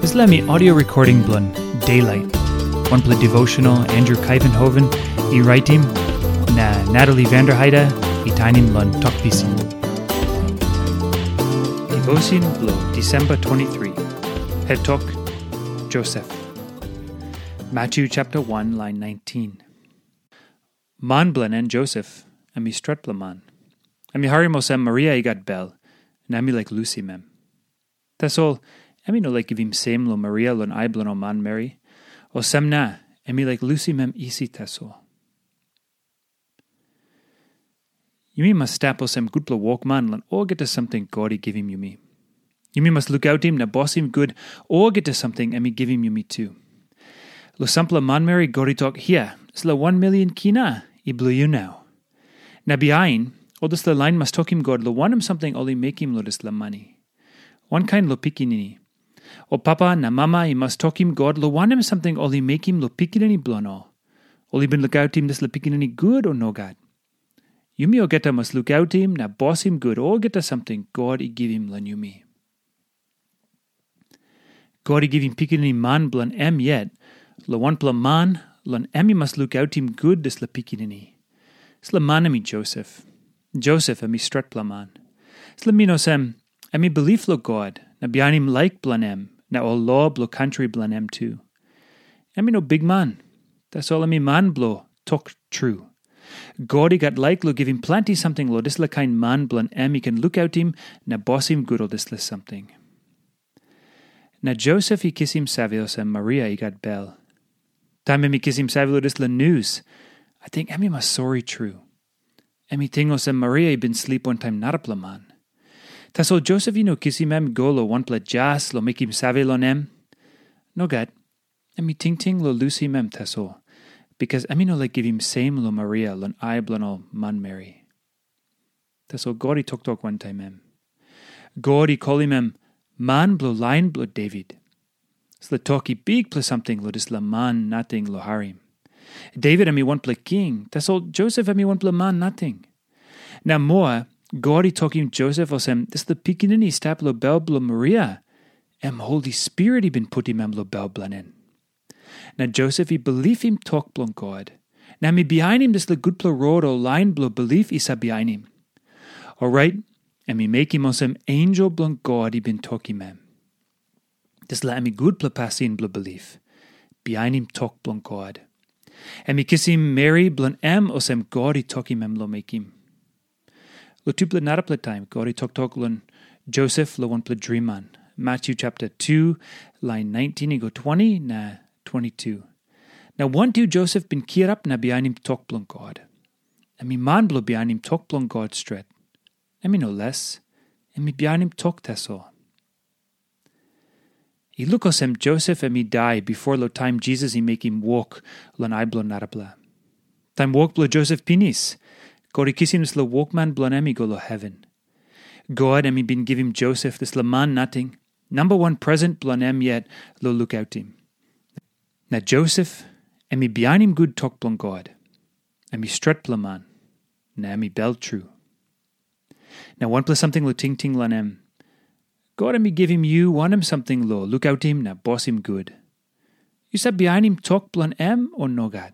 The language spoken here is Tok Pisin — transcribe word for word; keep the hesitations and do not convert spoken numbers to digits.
Dispela mi audio recording bilong Daylight, wanpela devotional Andrew Kaivenhoven i raitim, na Natalie Vanderheide i tainim long Tok Pisin. Devotion bilong Disemba twenty-three. Het tok, Joseph. Matthew chapter one, line nineteen. Man bilong en Joseph, em i stretpela man. Em i harim olsem Maria i gat bel, na em i laik lusim em. Tasol em i no laik givim sem long Maria long ai bilong ol manmeri. Olsem na, em i laik lusim em isi tasol. Yumi mas stap olsem gutpela wokman long olgeta samting God i givim yumi. Yumi mas lukautim na bosim gut olgeta samting em i givim yumi tu. Long sampela manmeri God i tok, "Hia, dispela wan milion kina i bilong yu nau." Na bihain, ol dispela lain mas tokim God long wanem samting ol i mekim long dispela mani. Wankain long pikinini. Ol papa na mama i mas tokim God long wanem samting ol i mekim long pikinini bilong ol. Ol i bin lukautim dispela pikinini gut o nogat? Yumi olgeta mas lukautim na bosim gut olgeta samting God i givim long yumi. God i givim pikinini man bilong em yet, long wanpela man, long em i mas lukautim gut dispela pikinini. Dispela man em i Josep. Josep em i stretpela man. Dispela min olsem, em i bilip long God, na bihainim laik bilong em, na ol lo bilong kantri bilong em tu. Em i no bikman, tasol em i man bilong tok tru. God i gat laik long givim planti samting long dispela kain man bilong em i ken lukautim na bosim gut ol dispela samting. Na Josep i kisim save olsem Maria i gat bel. Taim em i kisim save long dispela nius, ating em i mas sori tru. Em i ting olsem Maria i bin slip wantaim narapela man. Tasol Josep i no kisim em i go long wanpela jas long mekim save long em. Nogat, em i tingting long lusim em tasol, bikas em i no laik givim sem long Maria long ai bilong ol manmeri. Tasol God i toktok wantaim em. God i kolim em man bilong lain bilong Devit. Dispela tok i bikpela samting long dispela man nating long harim. Devit em i wanpela king, tasol Josep em i wanpela man nating. Na moa, God i tokim Josep olsem, dispela pikinini i stap long bel bilong Maria, em Holi Spirit i bin putim em long bel bilong en. Na Josep i bilipim tok bilong God, na em i bihainim dispela gutpela rot o lain bilong bilip i save bihainim. Orait, em i mekim olsem ensel bilong God i bin tokim em. Dispela em i gutpela pasin bilong bilip, bihainim tok bilong God. Em i kisim meri bilong em olsem God i tokim em long mekim. Long tupela narapela taim God i toktok long Josep long wanpela driman, Matyu chapter two, lain nineteen i go twenty na twenty-two. Na wantu Josep bin kirap na bihainim tok bilong God. Em i man bilong bihainim tok bilong God stret. Em i no les, em i bihainim tok tasol. I luk olsem Josep em i dai bipo long taim Jisas i mekim wok long ai bilong narapela. Taim wok bilong Josep pinis, God i kisim dispela wokman bilong em i go long heven. God em i bin givim Josep dispela man nating, namba wan presen bilong em yet long lukautim. Na Josep em i bihainim gut tok bilong God. Em i stretpela man, na em i bel tru. Na wanpela samting long tingting long em, God em i givim yu wanem samting long lukautim na bosim gut? Yu save bihainim tok bilong em o nogat?